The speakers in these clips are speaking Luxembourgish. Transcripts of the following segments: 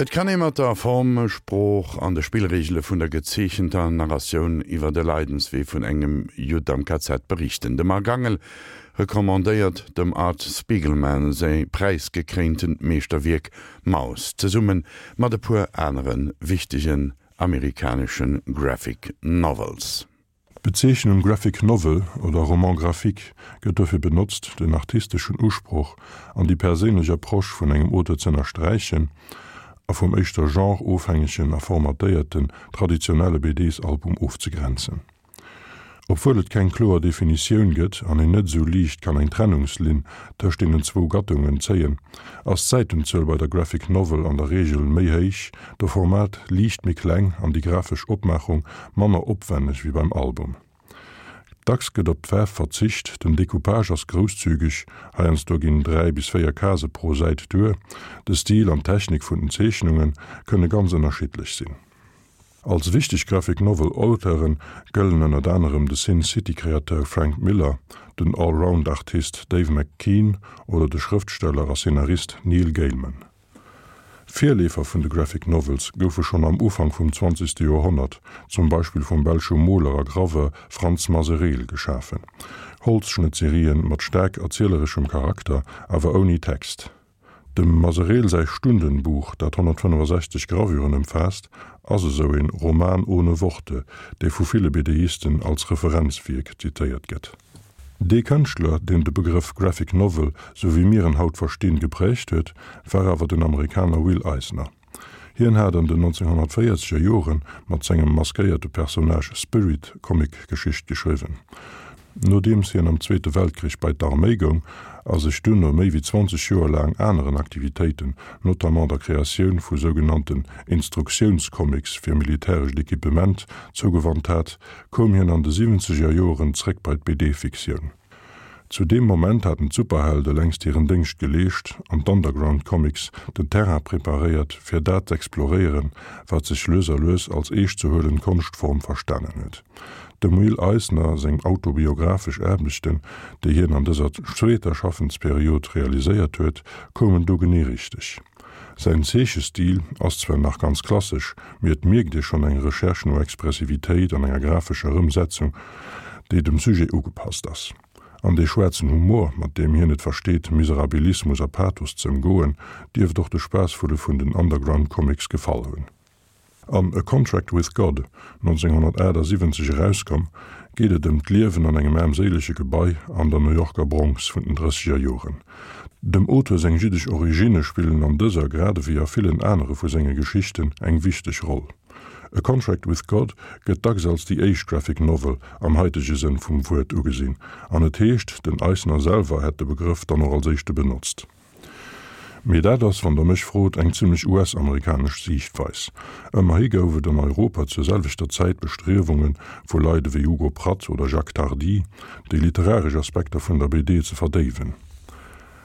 Et kann ee mat der Form, Sprooch an de Spillreegele vun der gezeechenter Narratioun iwwer de Leidenswee vun engem Judd am KZ berichten. De Marc Angel recommandéiert dem Art Spiegelman säi präisgekréintent Meeschterwierk Maus zesumme mat e puer anere wichtegen amerikanesche Graphic Novels. D'Bezeechnung Graphic Novel oder Roman graphique gëtt dofir benotzt, den artisteschen Usproch an déi perséinlech Approche vun engem Auteur z'ënnersträichen a vum éischter genre-ofhängegen a formatéierten, traditionelle BDs-Album ofzegrenzen. Obwuel et keng kloer Definitioun gëtt an een net esou liicht kann eng Trennungslinn tëscht deenen zwou Gattungen zéien, ass d'Säitenzuel bei der Graphic Novel an der Reegel méi héich, de Format liicht méi kleng an déi grafesch Opmaachung manner opwenneg wéi beim Album. Dacks gëtt op d'Faarf verzicht, den Decoupage ass grousszügeg, heiansdo ginn 3 bis 4 Case pro Säit duer. De Stil an d'Technik vun den Zeechnunge kënne ganz ënnerschiddlech sinn. Als wichteg Graphic Novel Auteure gëllen ënnert anerem de Sin City Kreateur Frank Miller, den Allround Artist Dave McKean oder de Schrëftsteller a Szenarist Neil Gaiman. Virleefer vun de Graphic Novels goufe schonn am Ufank vum zwanzegste Joerhonnert, zum Beispill vum belsche Moler a Graveur Frans Masereel, geschafen, Holzschnëttserien mat staark erzielereschem Charakter, awer ouni Text. Dem Masereel säi Stundenbuch, dat 165 Gravuren ëmfaasst, ass esou een Roman ohne Worte, dee vu ville BDisten als Referenzwierk zitéiert gëtt. Dee Kënschtler, deen de Begrëff Graphic Novel, sou wéi mir en haut verstinn, gepräägt huet, war awer den Amerikaner Will Eisner. Hien hat an den 1940er Jore mat sengem maskéierte Personnage Spirit Comicgeschicht geschriwwen. Nodeems hien am Zweete Weltkrich bei d'Arméi goung a sech duerno méi wéi 20 Joer laang aneren Aktivitéiten, notamment der Kreatioun vu sougenannten Instruktiounscomics fir militärescht Equipement, zougewannt hat, koum hien an de siwwenzeger Joren zréck bei d'BD-Fiktioun. Zu deem Moment haten d'Superhelde längst hiren Déngscht geleescht an d'Underground Comics den Terrain preparéiert fir dat z'exploréieren, wat sech lues a lues als eescht ze huelend Konschtform verstanen huet. Dem Will Eisner seng autobiographesch Aarbechten, déi hien an dëser zweeter Schaffensperiod realiséiert huet, koumen do genee richteg. Säin Zeechestil ass zwar nach ganz klassesch, mee et mierkt ee schonn eng Recherche no Expressivitéit an enger grafescher Ëmsetzung, déi dem Sujet ugepasst ass. An dee schwaarzen Humor, mat deem hien et versteet, Miserabilismus a Pathos ze ëmgoen, dierft och de Spaassvulle vun den Underground Comics gefall hunn. An A Contract with God, 1978 erauskomm, geet et ëm d'Liewen an engem aarmséilege Gebai an der New Yorker Bronx vun den drësseger Joren. Dem Auteur seng jiddesch Originne spillen an dëser, grad ewéi a villen anere vu senge Geschichten, eng wichteg Roll. A Contract with God gëtt dacks als déi éischt Graphic Novel am haitege Sënn vum Wuert ugesinn, an et heescht, den Eisner selwer hätt de Begrëff dann och als éischte benotzt. Mee dat ass, wann Der mech frot, eng zimlech US-amerikanesch Siichtweis. Ëmmerhi gouf et an Europa zur selwechter Zäit Bestriewunge vu Leit ewéi Hugo Pratt oder Jacques Tardi, déi literaresch Aspekter vun der BD ze verdéiwen.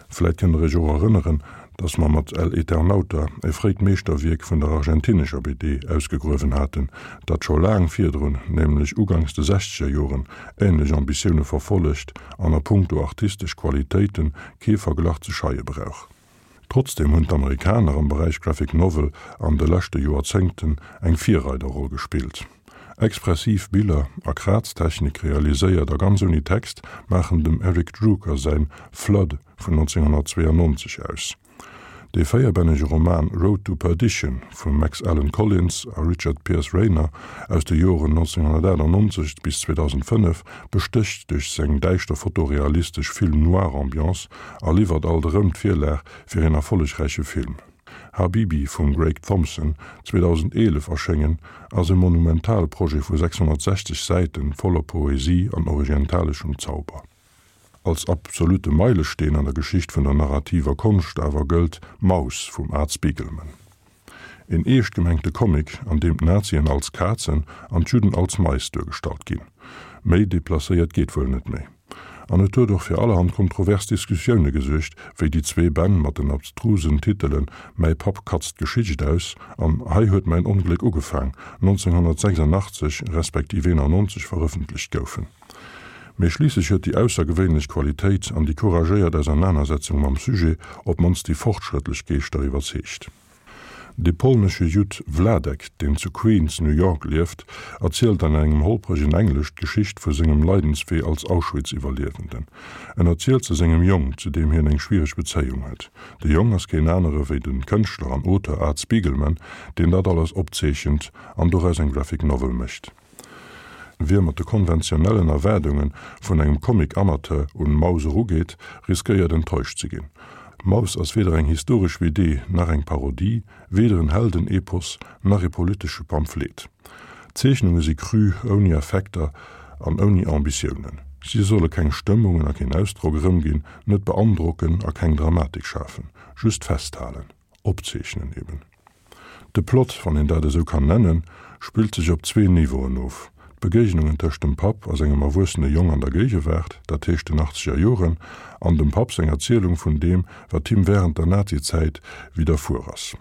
Vläit kënnt Der Iech och erënneren, datt mer mat El Eternauta e fréit Meeschterwierk vun der argentinescher BD ausgegruewen haten, dat scho laang virdrun, nämlech uganks de sechzeger Joren, änlech Ambitioune verfollegt an a punkto artistesch Qualitéite kee Verglach ze scheie brauch. Trotzdeem hunn d'Amerikaner am Beräich Graphic Novel an de leschte Joerzéngten eng Virreiderroll gespillt. Expressiv Biller a Kraztechnik realiséiert a ganz ouni Text maachen dem Eric Drooker säin Flood vun 1992 aus. Dee véierbännege Roman Road to Perdition vum Max Allan Collins a Richard Pierce Rayner aus de Joren 1998 bis 2005 bestécht duerch seng däischter fotorealistesch Film-Noir-Ambiance a liwwert alt erëm d'Virlag fir een erfollegräiche Film. Habibi vum Greig Thompson, 2011 erschéngen, ass e monumentale Projet vu 660 Säite voller Poesie an orientaleschem Zauber. Als absolute Meilesteen an der Geschicht vun der narrativer Konscht awer gëllt Maus vum Art Spiegelman. Een eescht gemengte Comic, an deem d'Nazien als Kazen an d'Judden als Mais duergestallt ginn. Méi deplacéiert geet wuel net méi. An et huet och fir allerhand kontrovers Diskussioune gesuergt, wéi déi zwee Bänn mat den abstrusen Titelen Mäi Papp katzt d'Geschicht aus an Hei huet mäin Ongléck ugefaang 1986 respektiv 91 verëffentlecht goufen. Mee schliisslech huet déi aussergewéinlech Qualitéit an déi couragéiert Ausernanersetzung mam Sujet op d'mannst déi fortschrëttlech Geeschter iwwerzeegt. De polnesche Judd Vladek, deen zu Queens, New York, lieft, erzielt an engem holpregen Englesch d'Geschicht vu sengem Leidenswee als Auschwitz-Iwwerliewenden. En erzielt se sengem Jong, zu deem hien eng schwiereg Bezéiung huet. De Jong ass keen anere wéi de Kënschtler an Auteur Art Spiegelman, deen dat alles opzeechent an doraus eng Graphic Novel mécht. Wie mat de konventionellen Erwaardunge vun engem Comic-Amateur un Maus erugeet, riskéiert enttäuscht ze ginn. Maus ass weder eng historesch BD nach eng Parodie, weder en Heldenepos nach e politesche Pamphlet. D'Zeechnunge si cru, ouni Effekter an ouni Ambitiounen. Si solle keng Stëmmungen a keen Ausdrock erëmginn, net beandrocken a keng Dramatik schafen, just festhalen. Opzeechnen eben. De Plot, wann een dat esou kann nennen, spillt sech op zwee Niveauen of, d'Begéignungen tëscht dem Papp a sengem erwuessene Jong an der Géigewaart, dat heescht den achtzeger Joren, an dem Papp seng Erzielung vun deem, wat him wärend der Nazizäit widderfuer ass.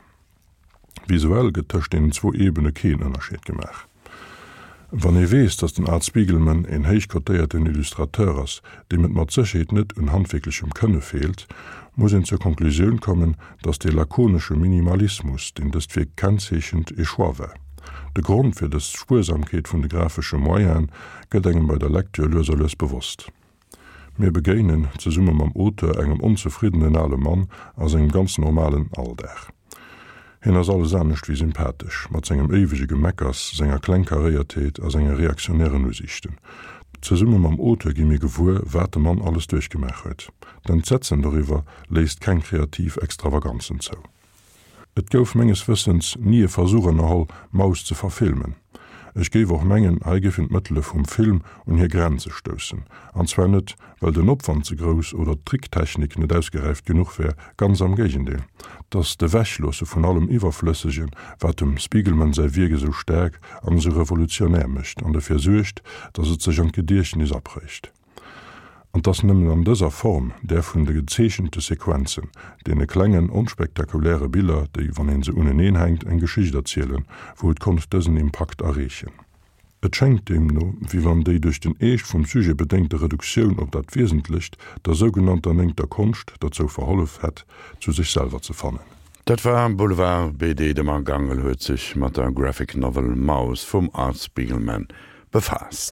Visuell gëtt tëscht deenen zwou Ebene keen Ënnerscheed gemaach. Wann ee weess, datt den Art Spiegelman een héich kotéierten Illustrateur ass, deem et mat Sécherheet net un handwierklechem Kënne feelt, muss een zur Konklusioun kommen, datt dee lakonesche Minimalismus, deen dëst Wierk kennzeechent, ee Choix war. De Grond fir dës Spuersamkeet vun de grafesche Moyene gëtt engem bei der Lecture lues a lues bewosst. Mir begéinen, zesumme mam Auteur, engem onzefriddenen ale Mann a sengem ganz normalen Alldag. Hien ass alles anescht wéi sympathesch, mat sengem éiwege Gemeckers, senger Klengkaréiertheet a senge reaktionären Usiichten. Zesumme mam Auteur gi mir gewuer, wat de Mann alles duerchgemaach huet. D'Entsetzen doriwwer léisst keng kreativ Extravaganzen zou. Et gouf menges Wëssens ni e Versuch ënnerholl, Maus ze verfilmen. Ech géif och mengen, hei géifen d'Mëttele vum Film un hir Grenze stoussen. An zwar net, well den Opwand ze grouss oder d'Tricktechnik net ausgeräift genuch wär, ganz am Géigendeel, 't ass d'Ewechloosse vun allem Iwwerflëssegen, wat dem Spiegelman säi Wierk esou staark an esou revolutionär mécht an dofir suergt, datt et sech an d'Gediechtnes aprégt. An 't ass nëmmen an dëser Form, där vun de gezeechente Sequenzen, deene klengen, onspektakuläre Biller, déi, wann een se uneneen hänkt, eng Geschicht erzielen, wou et konnt dësen Impakt erreechen. Et schéngt deemno, wéi wann déi duerch den Eescht vum Sujet bedéngte Reduktioun op dat Wiesentlecht der sougenannter néngter Konscht derzou verhollef hätt, zu sech selwer ze fannen. Dat war Boulevard BD. De Marc Angel huet sech mat der Graphic Novel Maus vum Art Spiegelman befaasst.